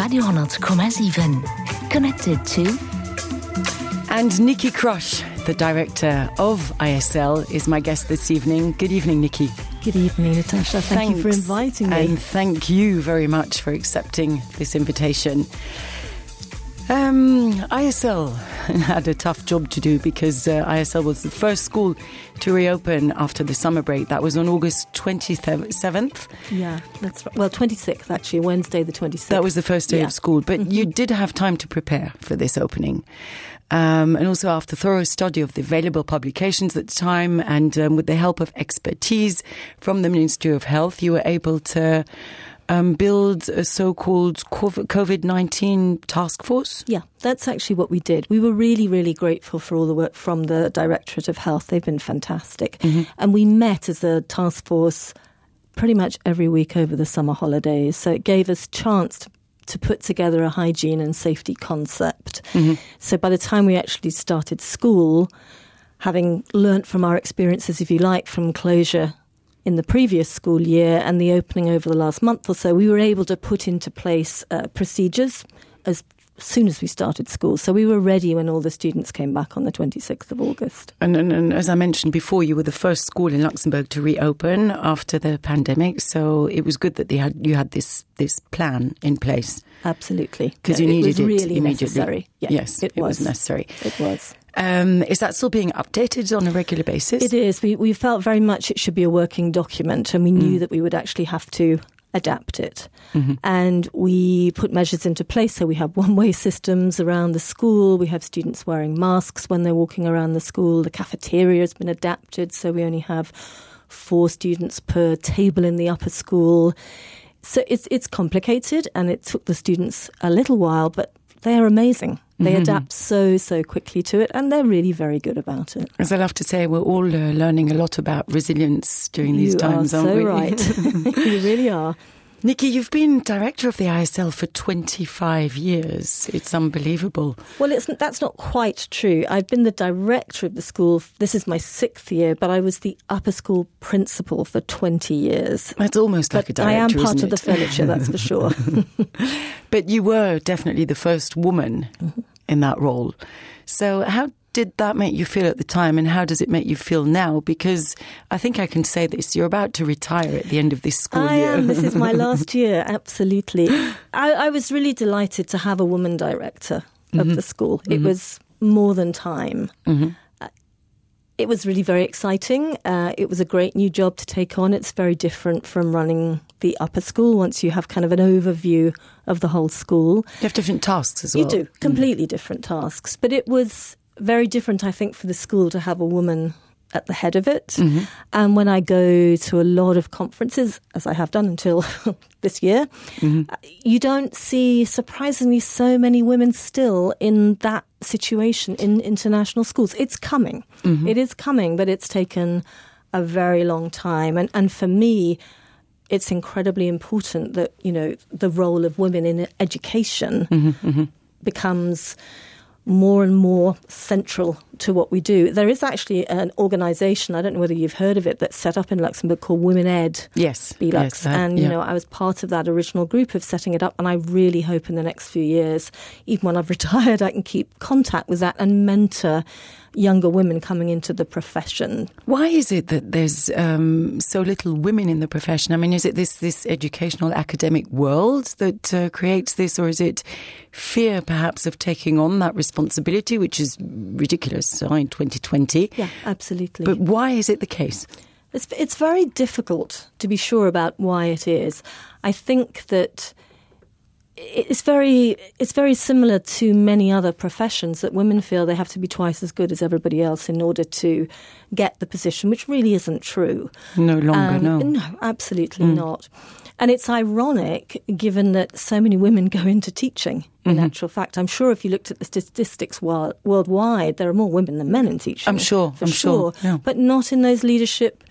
Radio,7. Connected to... And Nikki Crush, the director of ISL, is my guest this evening. Good evening, Nikki. Good evening, Natasha. Thank you for inviting me. And thank you very much for accepting this invitation. ISL had a tough job to do because ISL was the first school to reopen after the summer break. That was on August 27th. Yeah, that's right. Well, 26th, actually, Wednesday the 26th. That was the first day of school. But you did have time to prepare for this opening. And also after thorough study of the available publications at the time and with the help of expertise from the Ministry of Health, you were able to build a so-called COVID-19 task force? Yeah, that's actually what we did. We were really, really grateful for all the work from the Directorate of Health. They've been fantastic. And we met as a task force pretty much every week over the summer holidays. So it gave us chance to put together a hygiene and safety concept. So by the time we actually started school, having learnt from our experiences, if you like, from closure in the previous school year and the opening over the last month or so, we were able to put into place procedures as soon as we started school. So we were ready when all the students came back on the 26th of August. And as I mentioned before, you were the first school in Luxembourg to reopen after the pandemic. So it was good that you had this plan in place. Absolutely. Because you needed it really immediately. Necessary. Yeah, yes, it was necessary. It was. Is that still being updated on a regular basis? It is. We felt very much it should be a working document, and we knew that we would actually have to adapt it. And we put measures into place. So we have one-way systems around the school. We have students wearing masks when they're walking around the school. The cafeteria has been adapted, so we only have 4 students per table in the upper school. So it's complicated, and it took the students a little while, but they are amazing. They adapt so quickly to it, and they're really very good about it. As I love to say, we're all learning a lot about resilience during these times, aren't we? You are so right. You really are. Nikki, you've been director of the ISL for 25 years. It's unbelievable. Well, that's not quite true. I've been the director of the school. This is my 6th year, but I was the upper school principal for 20 years. That's almost like a director, I am part isn't of the furniture, that's for sure. But you were definitely the first woman in that role. So how did that make you feel at the time, and how does it make you feel now? Because I think I can say this, you're about to retire at the end of this school year. I am. This is my last year, absolutely. I was really delighted to have a woman director of the school. It was more than time. It was really very exciting. It was a great new job to take on. It's very different from running the upper school once you have kind of an overview of the whole school. You have different tasks as well. You do, completely different tasks. But it was very different, I think, for the school to have a woman at the head of it. And when I go to a lot of conferences, as I have done until this year, you don't see, surprisingly, so many women still in that situation in international schools. It's coming. It is coming, but it's taken a very long time. And for me, it's incredibly important that, you know, the role of women in education becomes more and more central to what we do. There is actually an organisation, I don't know whether you've heard of it, that's set up in Luxembourg called Women Ed. Yes. BLUX. And, you know, I was part of that original group of setting it up, and I really hope in the next few years, even when I've retired, I can keep contact with that and mentor younger women coming into the profession. Why is it that there's so little women in the profession? I mean, is it this educational academic world that creates this, or is it fear perhaps of taking on that responsibility, which is ridiculous in 2020? Yeah, absolutely. But why is it the case? It's very difficult to be sure about why it is. I think that it's very similar to many other professions, that women feel they have to be twice as good as everybody else in order to get the position, which really isn't true. No longer, no. No, absolutely not. And it's ironic, given that so many women go into teaching, in actual fact. I'm sure if you looked at the statistics worldwide, there are more women than men in teaching. I'm sure. Yeah. But not in those leadership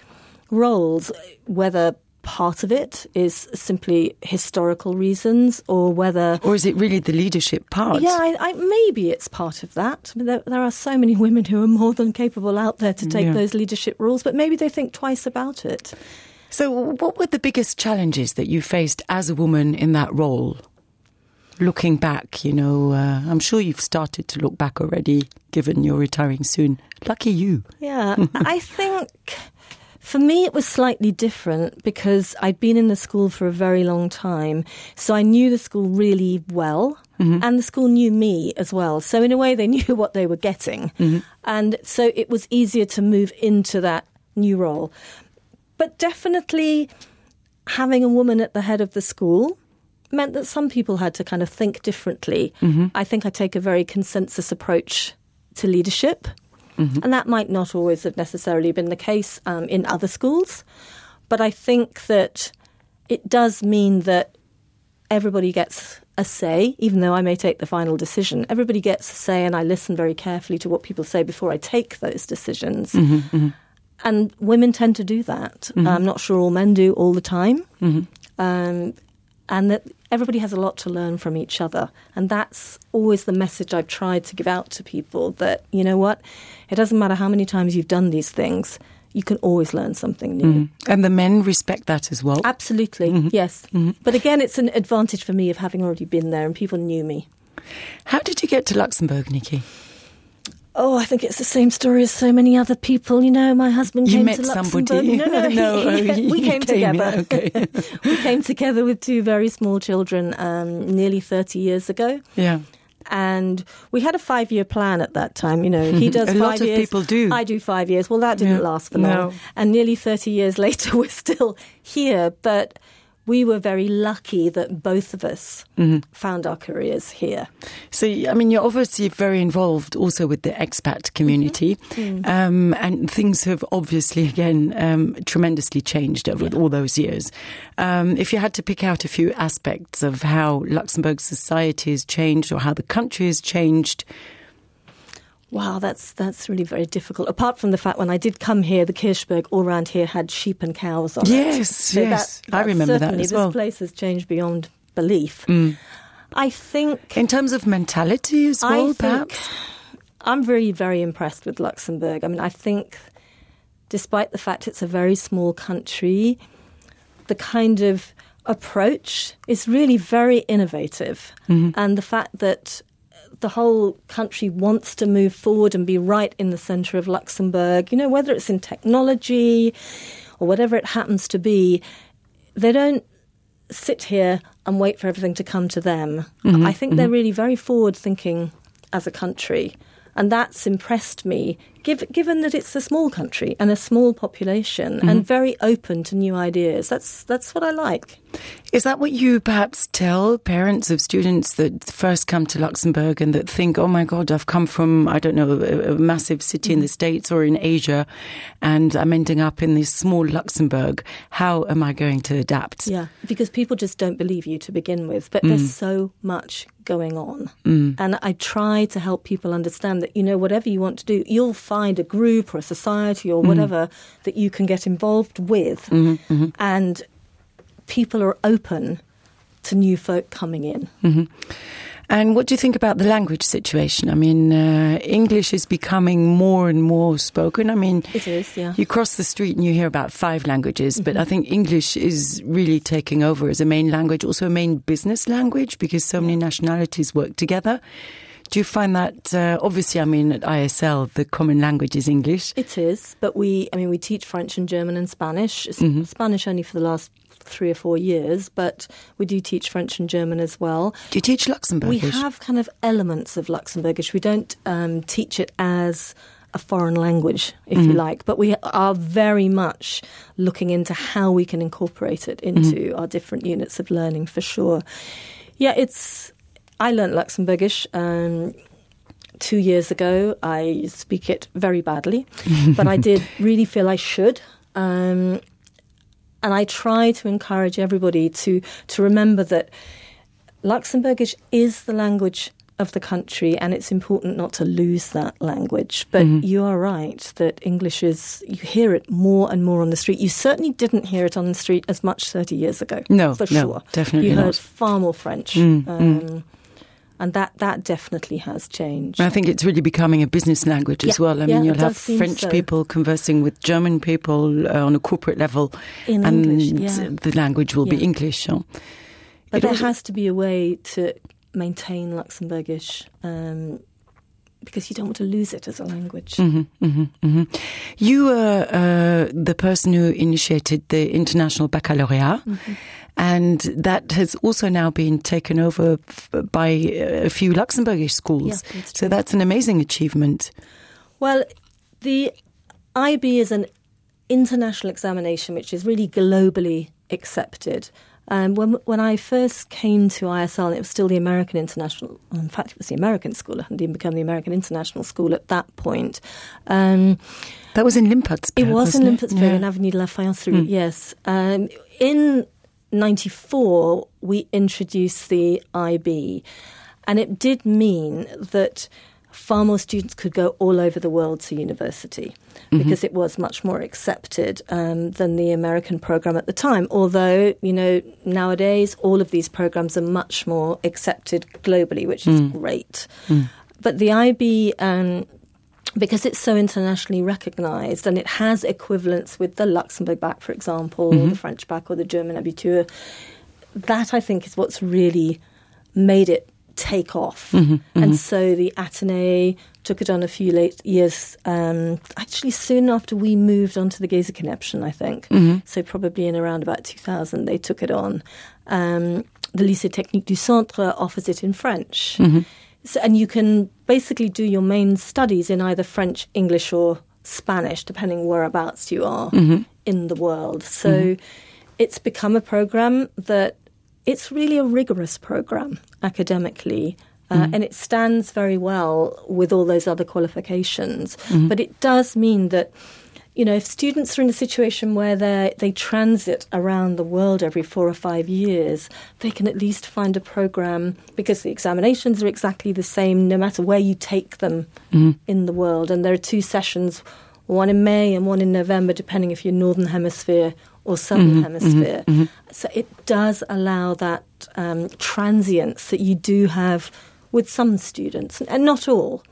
roles, whether part of it is simply historical reasons, or whether... Or is it really the leadership part? Yeah, maybe it's part of that. I mean, there are so many women who are more than capable out there to take those leadership roles, but maybe they think twice about it. So what were the biggest challenges that you faced as a woman in that role? looking back, I'm sure you've started to look back already, given you're retiring soon. Lucky you. Yeah, I think for me it was slightly different because I'd been in the school for a very long time. So I knew the school really well, and the school knew me as well. So in a way they knew what they were getting. And so it was easier to move into that new role. But definitely having a woman at the head of the school meant that some people had to kind of think differently. I think I take a very consensus approach to leadership, and that might not always have necessarily been the case in other schools. But I think that it does mean that everybody gets a say, even though I may take the final decision. Everybody gets a say, and I listen very carefully to what people say before I take those decisions. And women tend to do that. I'm not sure all men do all the time. And that everybody has a lot to learn from each other. And that's always the message I've tried to give out to people, that, you know what, it doesn't matter how many times you've done these things, you can always learn something new. And the men respect that as well? Absolutely, yes. But again, it's an advantage for me of having already been there and people knew me. How did you get to Luxembourg, Nikki? Oh, I think it's the same story as so many other people. My husband came to Luxembourg. Somebody. No, we came together. Okay. We came together with two very small children nearly 30 years ago. Yeah. And we had a 5-year plan at that time. He does 5 years. A lot of people do. I do 5 years. Well, that didn't last for long. No. And nearly 30 years later, we're still here. But we were very lucky that both of us found our careers here. So, you're obviously very involved also with the expat community. And things have obviously, again, tremendously changed over all those years. If you had to pick out a few aspects of how Luxembourg society has changed or how the country has changed... Wow, that's really very difficult. Apart from the fact when I did come here, the Kirchberg all around here had sheep and cows on it. Yes, yes. I remember that as well. This place has changed beyond belief. I think... In terms of mentality as well, perhaps? I'm very, very impressed with Luxembourg. I think despite the fact it's a very small country, the kind of approach is really very innovative. And the fact that the whole country wants to move forward and be right in the centre of Luxembourg, whether it's in technology or whatever it happens to be, they don't sit here and wait for everything to come to them. I think they're really very forward-thinking as a country. And that's impressed me, given that it's a small country and a small population and very open to new ideas. That's what I like. Is that what you perhaps tell parents of students that first come to Luxembourg and that think, oh my God, I've come from, I don't know, a massive city in the States or in Asia and I'm ending up in this small Luxembourg. How am I going to adapt? Yeah, because people just don't believe you to begin with. But there's so much going on. And I try to help people understand that, whatever you want to do, you'll find a group or a society or whatever that you can get involved with. And people are open to new folk coming in. And what do you think about the language situation? English is becoming more and more spoken. It is, yeah. You cross the street and you hear about 5 languages, but I think English is really taking over as a main language, also a main business language, because so many nationalities work together. Do you find that, obviously, at ISL, the common language is English? It is, but we teach French and German and Spanish. Spanish only for the last 3 or 4 years, but we do teach French and German as well. Do you teach Luxembourgish? We have kind of elements of Luxembourgish. We don't teach it as a foreign language, if you like, but we are very much looking into how we can incorporate it into our different units of learning, for sure. Yeah, I learnt Luxembourgish 2 years ago. I speak it very badly, but I did really feel I should. And I try to encourage everybody to remember that Luxembourgish is the language of the country, and it's important not to lose that language. But you are right that English you hear it more and more on the street. You certainly didn't hear it on the street as much 30 years ago. No, for sure. Definitely you not. heard far more French. And that definitely has changed. I think it's really becoming a business language as well. You'll have French people conversing with German people on a corporate level. In and English, the language will be English. But there has to be a way to maintain Luxembourgish because you don't want to lose it as a language. You were the person who initiated the International Baccalaureate, and that has also now been taken over by a few Luxembourgish schools. Yeah, so that's an amazing achievement. Well, the IB is an international examination which is really globally accepted. When I first came to ISL, it was still the American International. In fact, it was the American school. It hadn't even become the American International School at that point. That was in Limpotsburg. It was in Limpotsburg, in Avenue de la Fayence, yes. In 1994, we introduced the IB, and it did mean that far more students could go all over the world to university because it was much more accepted than the American program at the time. Although, nowadays all of these programs are much more accepted globally, which is great. But the IB, because it's so internationally recognised and it has equivalents with the Luxembourg bac, for example, or the French bac or the German Abitur, that I think is what's really made it take off. And so the Athénée took it on a few late years, actually soon after we moved on to the Geza-Connection, I think. So probably in around about 2000 they took it on. The Lycée Technique du Centre offers it in French. So, and you can basically do your main studies in either French, English or Spanish, depending whereabouts you are in the world. So it's become a program that it's really a rigorous program academically, and it stands very well with all those other qualifications. But it does mean that, if students are in a situation where they transit around the world every 4 or 5 years, they can at least find a program, because the examinations are exactly the same no matter where you take them in the world. And there are 2 sessions, one in May and one in November, depending if you're Northern Hemisphere or Southern Hemisphere. So it does allow that transience that you do have with some students, and not all.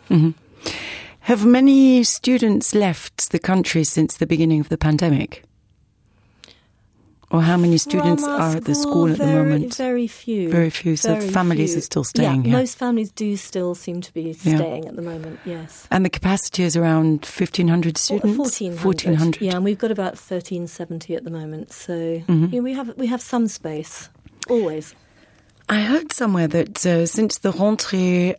Have many students left the country since the beginning of the pandemic? Or how many students are at the school at the moment? Very few. Very few. So families are still staying here. Most families do still seem to be staying at the moment, yes. And the capacity is around 1,500 students? 1,400. Yeah, and we've got about 1,370 at the moment. So we have some space, always. I heard somewhere that since the rentrée,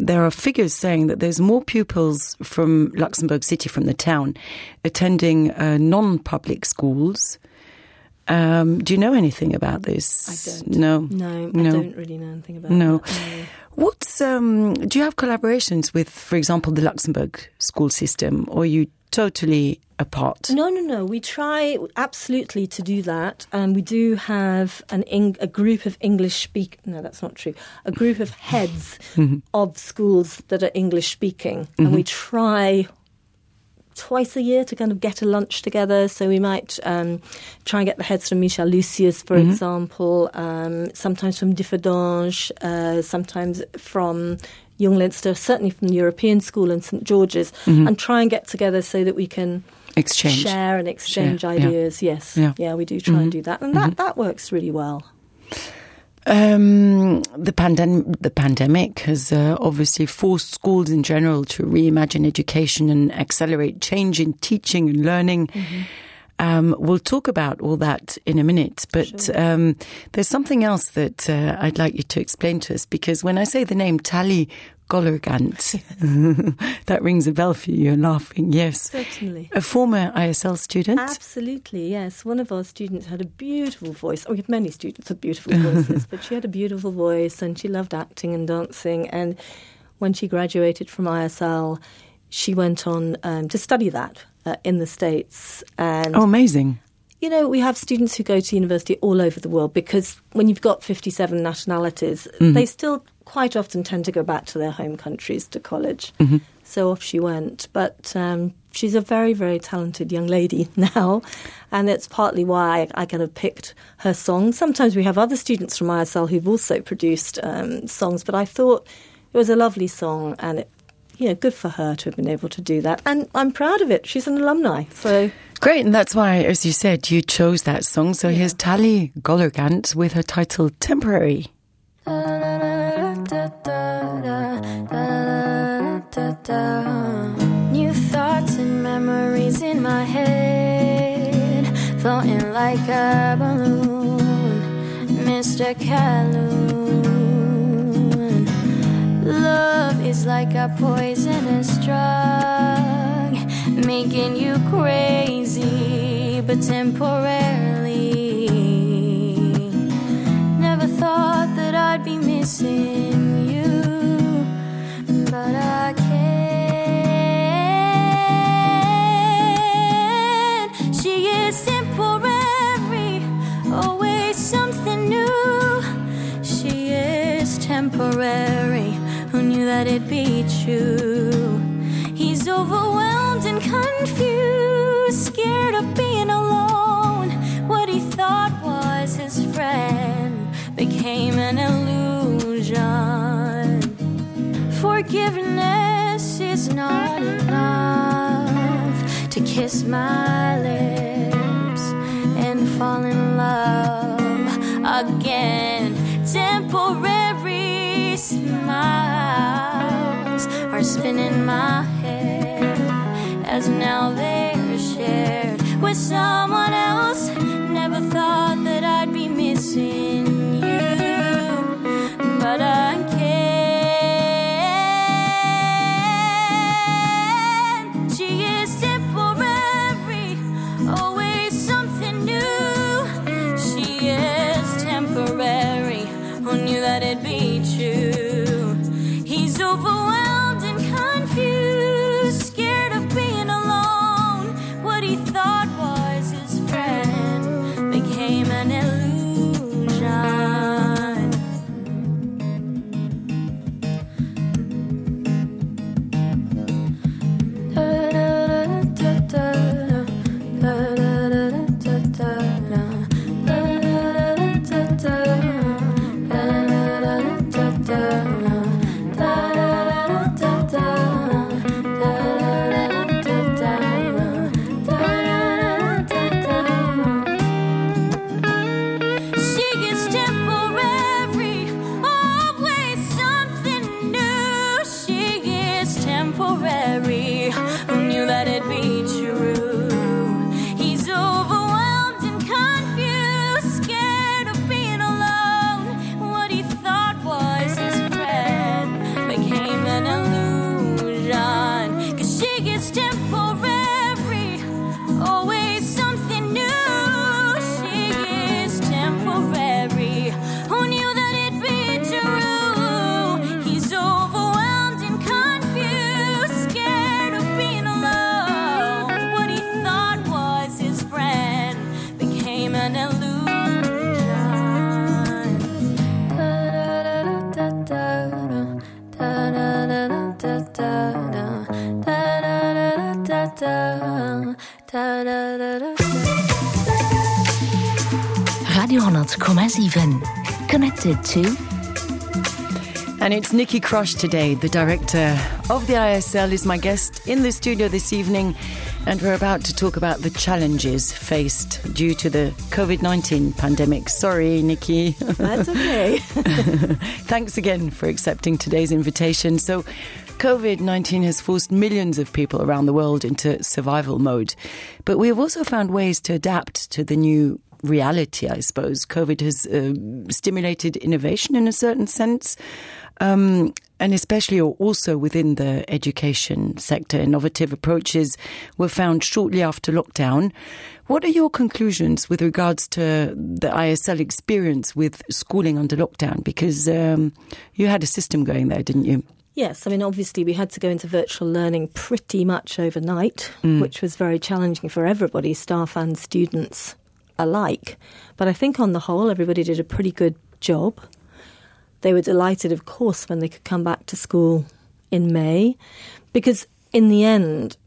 there are figures saying that there's more pupils from Luxembourg City, from the town, attending non-public schools. Do you know anything about this? I don't. No, I don't really know anything about that. No. What's do you have collaborations with, for example, the Luxembourg school system, or are you totally apart? No. We try absolutely to do that, and we do have a group of No, that's not true. A group of heads of schools that are English speaking, and we try twice a year to kind of get a lunch together. So we might try and get the heads from Michel Lucius, for example, sometimes from Differdange, sometimes from Young Leinster, certainly from the European School and St George's, and try and get together so that we can share and exchange ideas. Yeah. Yes, yeah, we do try and do that, and that works really well. The pandemic has obviously forced schools in general to reimagine education and accelerate change in teaching and learning. We'll talk about all that in a minute, but there's something else that I'd like you to explain to us, because when I say the name Tali Gollergant, that rings a bell for you. You're laughing, yes. Certainly. A former ISL student? Absolutely, yes. One of our students had a beautiful voice. We have many students with beautiful voices, but she had a beautiful voice and she loved acting and dancing. And when she graduated from ISL, she went on to study that in the States. And amazing. We have students who go to university all over the world, because when you've got 57 nationalities, they still quite often tend to go back to their home countries to college. So off she went. But she's a very, very talented young lady now, and it's partly why I kind of picked her songs. Sometimes we have other students from ISL who've also produced songs, but I thought it was a lovely song, and good for her to have been able to do that. And I'm proud of it. She's an alumni, so... Great, and that's why, as you said, you chose that song. So here's Tali Gollergant with her title Temporary. New thoughts and memories in my head, floating like a balloon, Mr. Calhoun. Love is like a poisonous drug, making you crazy, but temporarily. Never thought that I'd be missing you, but I can't. She is temporary, always something new. She is temporary, who knew that it'd be true? He's overwhelmed and confused, scared of being alone. What he thought was his friend became an illusion. Forgiveness is not enough to kiss my lips and fall in love again. Temporary smiles are spinning my head as now they're shared with someone else. Never thought that I'd be missing you, but I can't. She is temporary, always something new. She is temporary, who knew that it'd be true? He's overwhelmed and confused, scared of being alone. What he thought was his friend became an illusion. Radio 100,7. Connected to... And it's Nikki Crush today, the director of the ISL, is my guest in the studio this evening, and we're about to talk about the challenges faced due to the COVID-19 pandemic. Sorry, Nikki. That's okay. Thanks again for accepting today's invitation. So, COVID-19 has forced millions of people around the world into survival mode, but we have also found ways to adapt to the new reality, I suppose. COVID has stimulated innovation in a certain sense, and especially or also within the education sector. Innovative approaches were found shortly after lockdown. What are your conclusions with regards to the ISL experience with schooling under lockdown? Because you had a system going there, didn't you? Yes, I mean, obviously we had to go into virtual learning pretty much overnight, which was very challenging for everybody, staff and students alike. But I think on the whole, everybody did a pretty good job. They were delighted, of course, when they could come back to school in May, because in the end,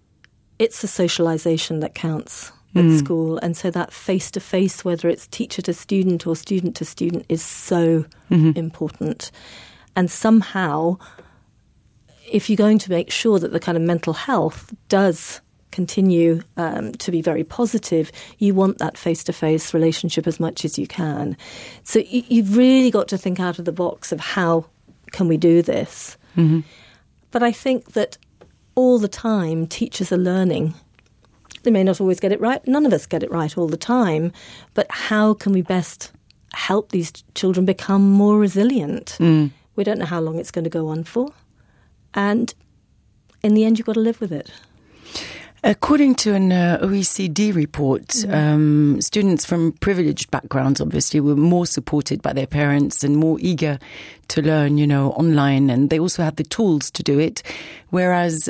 it's the socialisation that counts at school. And so that face-to-face, whether it's teacher to student or student to student, is so important. And somehow, if you're going to make sure that the kind of mental health does continue to be very positive, you want that face-to-face relationship as much as you can. So you've really got to think out of the box of how can we do this? Mm-hmm. But I think that all the time teachers are learning. They may not always get it right. None of us get it right all the time. But how can we best help these children become more resilient? We don't know how long it's going to go on for. And in the end, you've got to live with it. According to an OECD report, students from privileged backgrounds obviously were more supported by their parents and more eager to learn, online, and they also had the tools to do it, whereas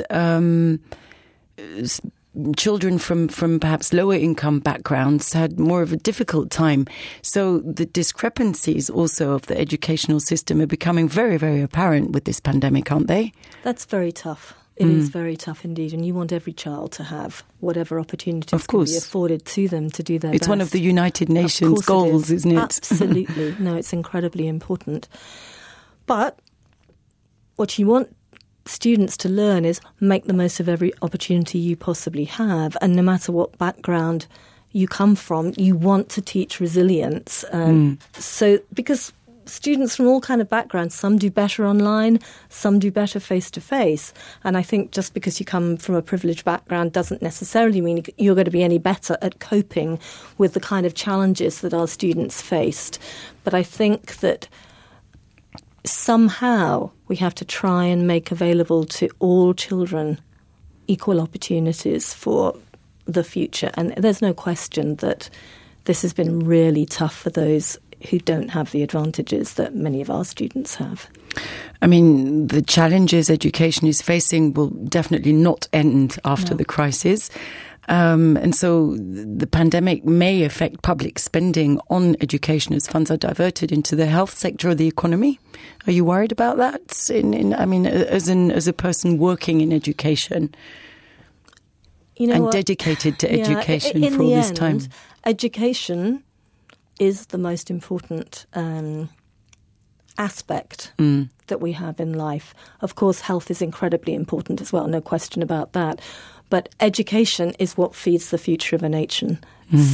children from perhaps lower income backgrounds had more of a difficult time. So the discrepancies also of the educational system are becoming very, very apparent with this pandemic, aren't they? That's very tough. It is very tough indeed, and you want every child to have whatever opportunities can be afforded to them to do their best. It's one of the United Nations goals, isn't it? Absolutely. No, it's incredibly important. But what you want students to learn is make the most of every opportunity you possibly have, and no matter what background you come from, you want to teach resilience. So, because students from all kind of backgrounds, some do better online, some do better face-to-face. And I think just because you come from a privileged background doesn't necessarily mean you're going to be any better at coping with the kind of challenges that our students faced. But I think that somehow we have to try and make available to all children equal opportunities for the future. And there's no question that this has been really tough for those who don't have the advantages that many of our students have. I mean, the challenges education is facing will definitely not end after the crisis. And so the pandemic may affect public spending on education as funds are diverted into the health sector of the economy. Are you worried about that? As a person working in education and dedicated to education for all this time? Education is the most important aspect that we have in life. Of course, health is incredibly important as well, no question about that. But education is what feeds the future of a nation.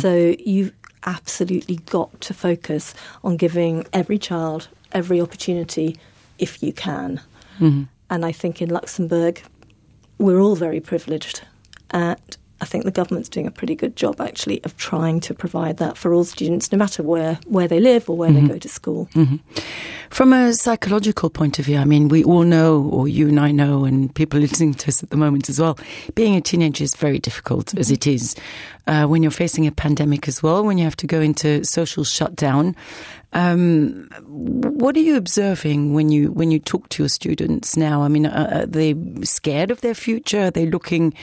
So you've absolutely got to focus on giving every child every opportunity if you can. And I think in Luxembourg, we're all very privileged. And I think the government's doing a pretty good job, actually, of trying to provide that for all students, no matter where they live or where they go to school. From a psychological point of view, I mean, we all know, or you and I know, and people listening to us at the moment as well, being a teenager is very difficult, as it is. When you're facing a pandemic as well, when you have to go into social shutdown. What are you observing when you talk to your students now? I mean, are they scared of their future? Are they looking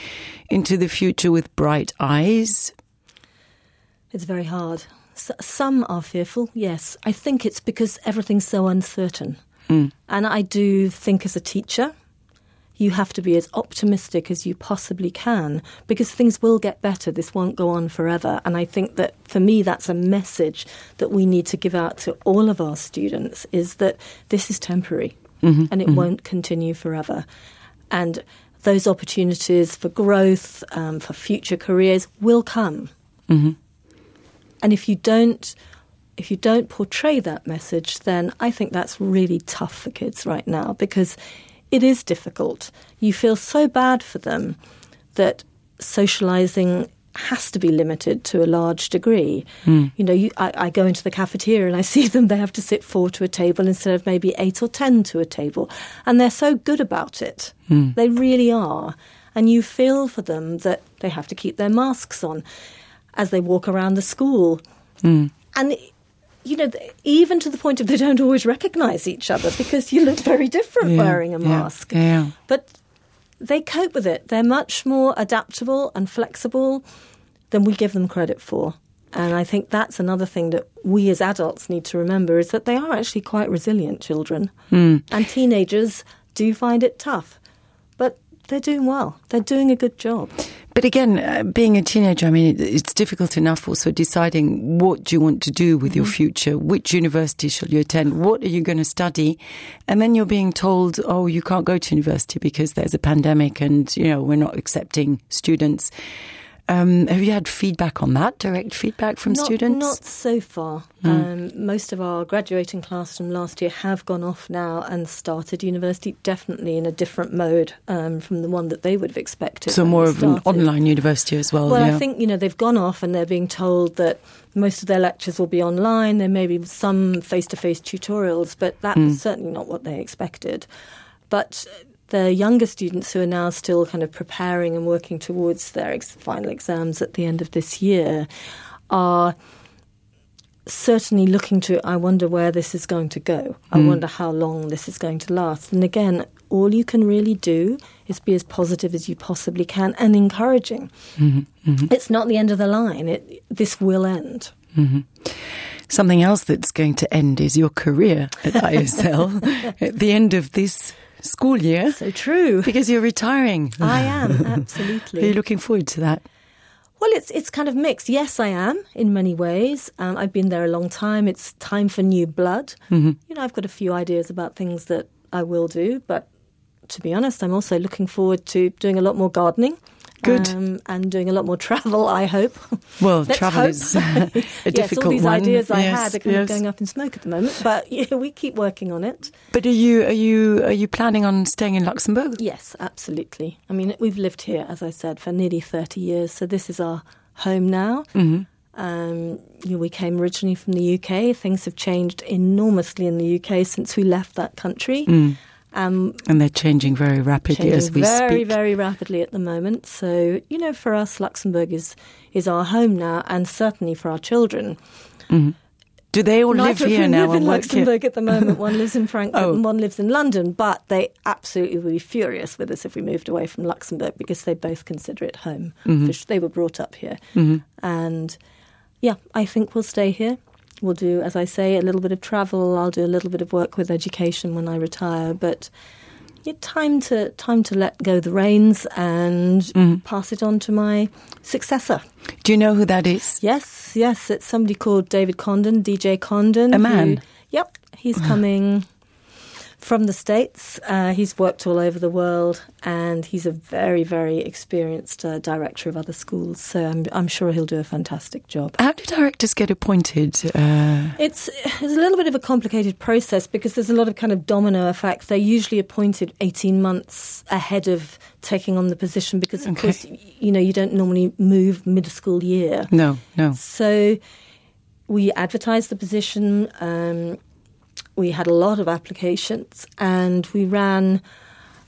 into the future with bright eyes? It's very hard. Some are fearful, yes. I think it's because everything's so uncertain. And I do think as a teacher, you have to be as optimistic as you possibly can because things will get better. This won't go on forever. And I think that, for me, that's a message that we need to give out to all of our students, is that this is temporary and it won't continue forever. And those opportunities for growth, for future careers will come. And if you don't portray that message, then I think that's really tough for kids right now because it is difficult. You feel so bad for them that socialising has to be limited to a large degree. I go into the cafeteria and I see them, they have to sit 4 to a table instead of maybe 8 or 10 to a table. And they're so good about it. They really are. And you feel for them that they have to keep their masks on as they walk around the school. And even to the point of they don't always recognise each other because you look very different wearing a mask. But they cope with it. They're much more adaptable and flexible than we give them credit for. And I think that's another thing that we as adults need to remember, is that they are actually quite resilient children. And teenagers do find it tough. But they're doing well. They're doing a good job. But again, being a teenager, I mean, it's difficult enough also deciding what you want to do with your future. Which university shall you attend? What are you going to study? And then you're being told, oh, you can't go to university because there's a pandemic and, we're not accepting students. Have you had feedback on that, direct feedback from students? Not so far. Most of our graduating class from last year have gone off now and started university, definitely in a different mode from the one that they would have expected. So more of an online university as well? Well, I think, they've gone off and they're being told that most of their lectures will be online. There may be some face-to-face tutorials, but that was certainly not what they expected. But the younger students who are now still kind of preparing and working towards their final exams at the end of this year are certainly looking to, I wonder where this is going to go. I wonder how long this is going to last. And again, all you can really do is be as positive as you possibly can and encouraging. It's not the end of the line. This will end. Something else that's going to end is your career at ISL at the end of this school year. So true. Because you're retiring. I am, absolutely. Are you looking forward to that? Well, it's kind of mixed. Yes, I am, in many ways. I've been there a long time. It's time for new blood. I've got a few ideas about things that I will do, but to be honest, I'm also looking forward to doing a lot more gardening. Good. And doing a lot more travel, I hope. Well, travel is a difficult all these one. ideas I had are kind of going up in smoke at the moment, but we keep working on it. But are you planning on staying in Luxembourg? Yes, absolutely. I mean, we've lived here, as I said, for nearly 30 years, so this is our home now. We came originally from the UK. Things have changed enormously in the UK since we left that country. And they're changing very rapidly as we speak. Very, very rapidly at the moment. So, for us, Luxembourg is our home now, and certainly for our children. Do they all live here now? Live in Luxembourg at the moment. One lives in Frankfurt and one lives in London, but they absolutely would be furious with us if we moved away from Luxembourg because they both consider it home. They were brought up here. And, I think we'll stay here. We'll do, as I say, a little bit of travel. I'll do a little bit of work with education when I retire. But time to let go the reins and pass it on to my successor. Do you know who that is? Yes. It's somebody called David Condon, DJ Condon. A man? He's coming from the States. He's worked all over the world, and he's a very, very experienced director of other schools. So I'm sure he'll do a fantastic job. How do directors get appointed? It's a little bit of a complicated process because there's a lot of kind of domino effect. They're usually appointed 18 months ahead of taking on the position because, of course, you don't normally move mid-school year. No. So we advertised the position. We had a lot of applications, and we ran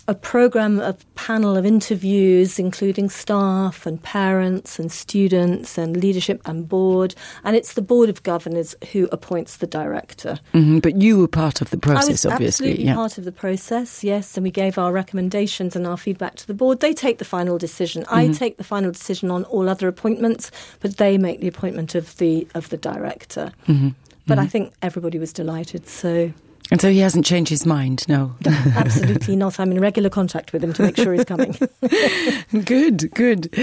a panel of interviews, including staff and parents and students and leadership and board. And it's the Board of Governors who appoints the director. But you were part of the process, obviously. I was obviously. absolutely part of the process, yes. And we gave our recommendations and our feedback to the board. They take the final decision. I take the final decision on all other appointments, but they make the appointment of the director. But I think everybody was delighted, so... And so he hasn't changed his mind, no? Absolutely not. I'm in regular contact with him to make sure he's coming. Good.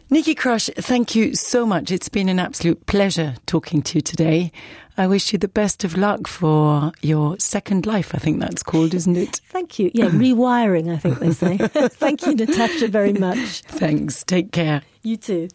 Nikki Crush, thank you so much. It's been an absolute pleasure talking to you today. I wish you the best of luck for your second life, I think that's called, isn't it? Thank you. Yeah, rewiring, I think they say. Thank you, Natasha, very much. Thanks. Take care. You too.